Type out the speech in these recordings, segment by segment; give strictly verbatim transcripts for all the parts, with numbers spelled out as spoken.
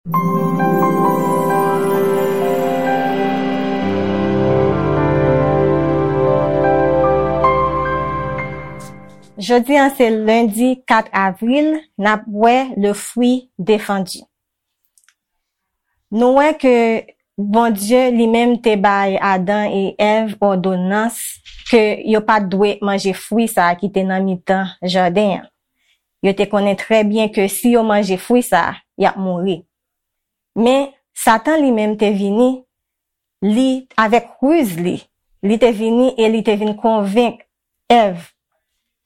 Jodi a se lendi kat avril, n ap wè le fruit défendu. Nou wè ke Bondye li menm te bay Adan e Èv òdonans ke yo pa t dwe manje fwi sa a ki te nan mitan jaden an. Yo te konnen trè byen ke si yo manje fwi sa a, y ap mouri. Men, Satan li menm te vini, li, avèk riz li, li te vini e li te vin konvenk Èv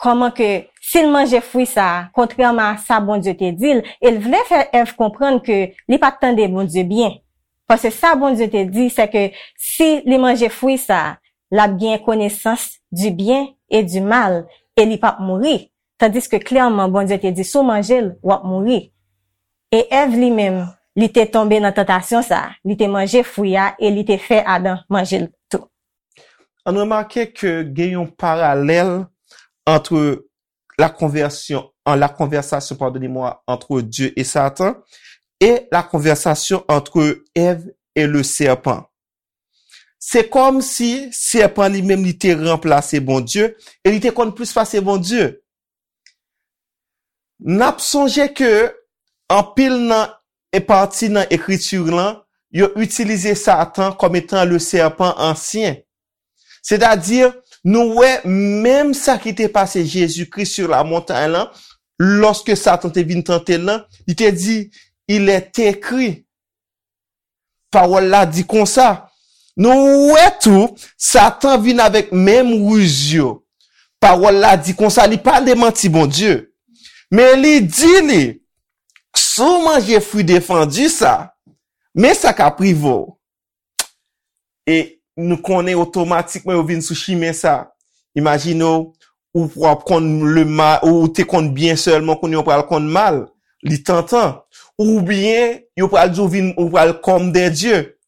kòman ke si l manje fwi sa a, kontrèman a sa Bondye te di l, e l vle fè Èv konprann ke li pa t tande Bondye byen. Paske sa Bondye te di, se ke si li manje fwi sa a, l ap gen konesans du bien et du mal, e li p ap mouri. Tandiske klèman, Bondye te di, si w manje l, w ap mouri. E Èv li menm, li te tonbe nan tantasyon sa a. Li te manje fwi a e li te fè Adan manje l tou. Ann remake ke gen yon paralèl ant la konvèsyon, an la konvèsasyon, pardonnez-moi, entre Dieu et Satan, et la konvèsasyon entre Èv et le serpent. Se kòmsi sèpan li menm li te ranplase Bondye e li te konn plis pase Bondye. N ap sonje ke anpil nan e pati nan ekriti lan, yo itilize Satan kòm etan le serpent ancien. Sètadi, nou wè menm sa ki te pase Jezikri sur la montagne lan, lòske Satan te vin tante l lan, li te di, il est écrit. Pawòl la di konsa. Nou wè tou, Satan vin avèk menm riz yo. Pawòl la di konsa, li pa demanti Bondye. Men li di li, si w manje fwi defandi sa, men sa k ap rive w. E nou konnen otomatikman yo vin sou chimen sa. Imajine w, ou p ap konn le mal, ou te konn byen sèlman, kounye a w pral konn mal. Li tantan. Oubyen, yo pral di w vin, ou pral comme des dieux.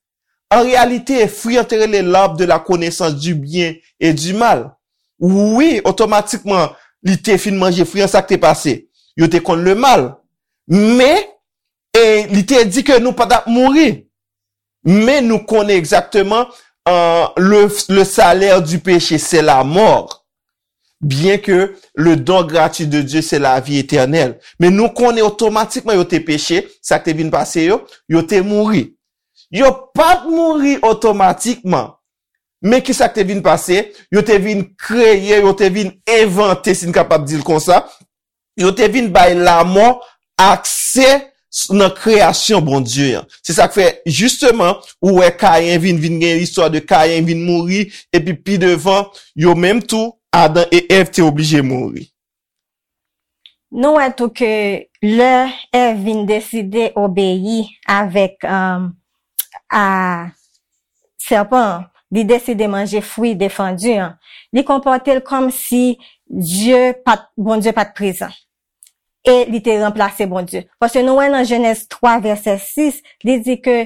An reyalite, fwi an te rele l'arbre de la connaissance du bien et du mal. Wi, otomatikman, li te fin manje fwi an, sa k te pase? Yo te konn le mal. Men, e li te di ke nou pa t ap mouri. Men nou konnen egzakteman, euh, le, le salaire du péché, c'est la mort. Bien que le don gratuit de Dieu, c'est la vie éternelle. Men nou konnen otomatikman yo te peche, sa k te vin pase yo, yo te mouri. Yo pa t mouri otomatikman. Men ki sa k te vin pase? Yo te vin kreye, yo te vin envante, si n kapab di l konsa. Yo te vin bay lamò akse nan kreyasyon Bondye an. Se sa k fè, jisteman, ou wè Kayen vin, vin gen istwa de Kayen vin mouri, epi pi devan, yo menm tou, Adan e Èv te oblije mouri. Nou wè tou ke lè Èv vin deside obeyi avèk, um, a sèpan an, li deside manje fwi defandi an, li konpòte l kòmsi Dye pa t, Bondye pa t prezan. E li te ranplase Bondye. Paske nou wè nan Jenèz twa vèsè sis, li di ke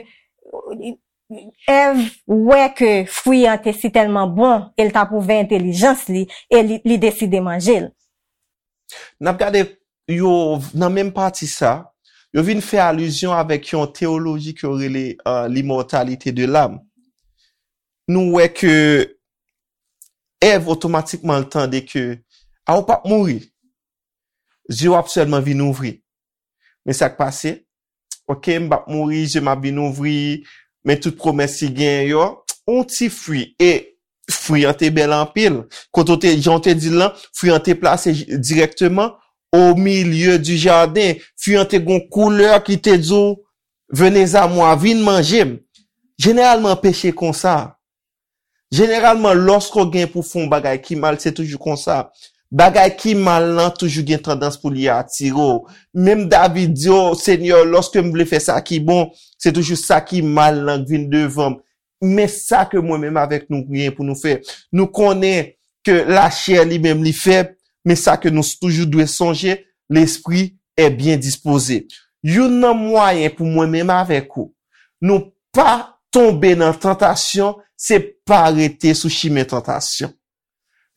Èv wè ke fwi an te sitèlman bon e l t ap ouvè entèlijans li e li, li deside manje l. N ap gade yo nan menm pati sa, yo vin fè alizyon avèk yon teyoloji ke yo rele, euh, l'immortalité de l'âme. Nou wè ke Èv otomatikman l tande ke, a, ou p ap mouri. Zye w ap sèlman vin ouvri. Men sa k pase? Ok, m p ap mouri, zye m ap vin ouvri, men tout pwomès ki genyen yo, yon ti fwi. E fwi an te bèl anpil. Kote w te, jan w te di l lan, fwi an te plase j-, dirèkteman au milieu du jardin. Fwi an te gon koulè ki te di w, venez à moi, vin manje m. Jeneralman, peche konsa. Jeneralman, lòske w gen pou fè yon bagay ki mal, se toujou konsa. Bagay ki mal lan toujou gen tandans pou li atire w. Menm David di, o Senyè, lòske m vle fè sa ki bon, se toujou sa ki mal lan k vin devan m. Men sa ke mwen menm avèk nou gen pou nou fè. Nou konnen ke lachè li menm li fèb, men sa ke nou toujou dwe sonje, lespri est bien disposé. Youn nan mwayen pou mwen menm avèk ou, nou pa tonbe nan tantasyon, se pa rete sou chimen tantasyon.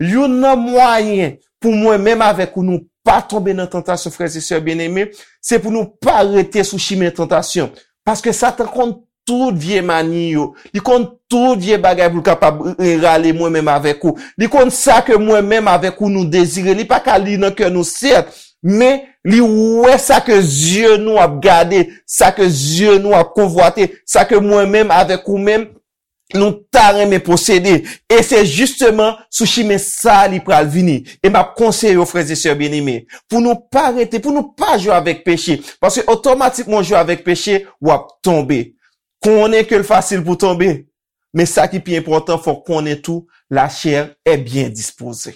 Youn nan mwayen pou mwen menm avèk ou, nou pa tonbe nan tantasyon, frè e sè byeneme, se pou nou pa rete sou chimen tantasyon. Paske Satan konn tout vye mani yo. Li konn tout vye bagay pou l kapab, e, rale mwen menm avèk ou. Li konn sa ke mwen menm avèk ou nou dezire. Li pa ka li nan kè nou, sèt, men li wè sa ke zye nou ap gade, sa ke zye nou ap konvwate, sa ke mwen menm avèk ou menm nou ta renmen posede. E se jisteman sou chimen sa li pral vini. E m ap konseye yo, frè e sè byeneme, pou nou pa rete, pou nou pa jwe avèk peche. Paske otomatikman w jwe avèk peche, w ap tonbe. Konnen ke l fasil pou tonbe. Men sa ki pi enpòtan, fò w konnen tou, la chair est bien disposée.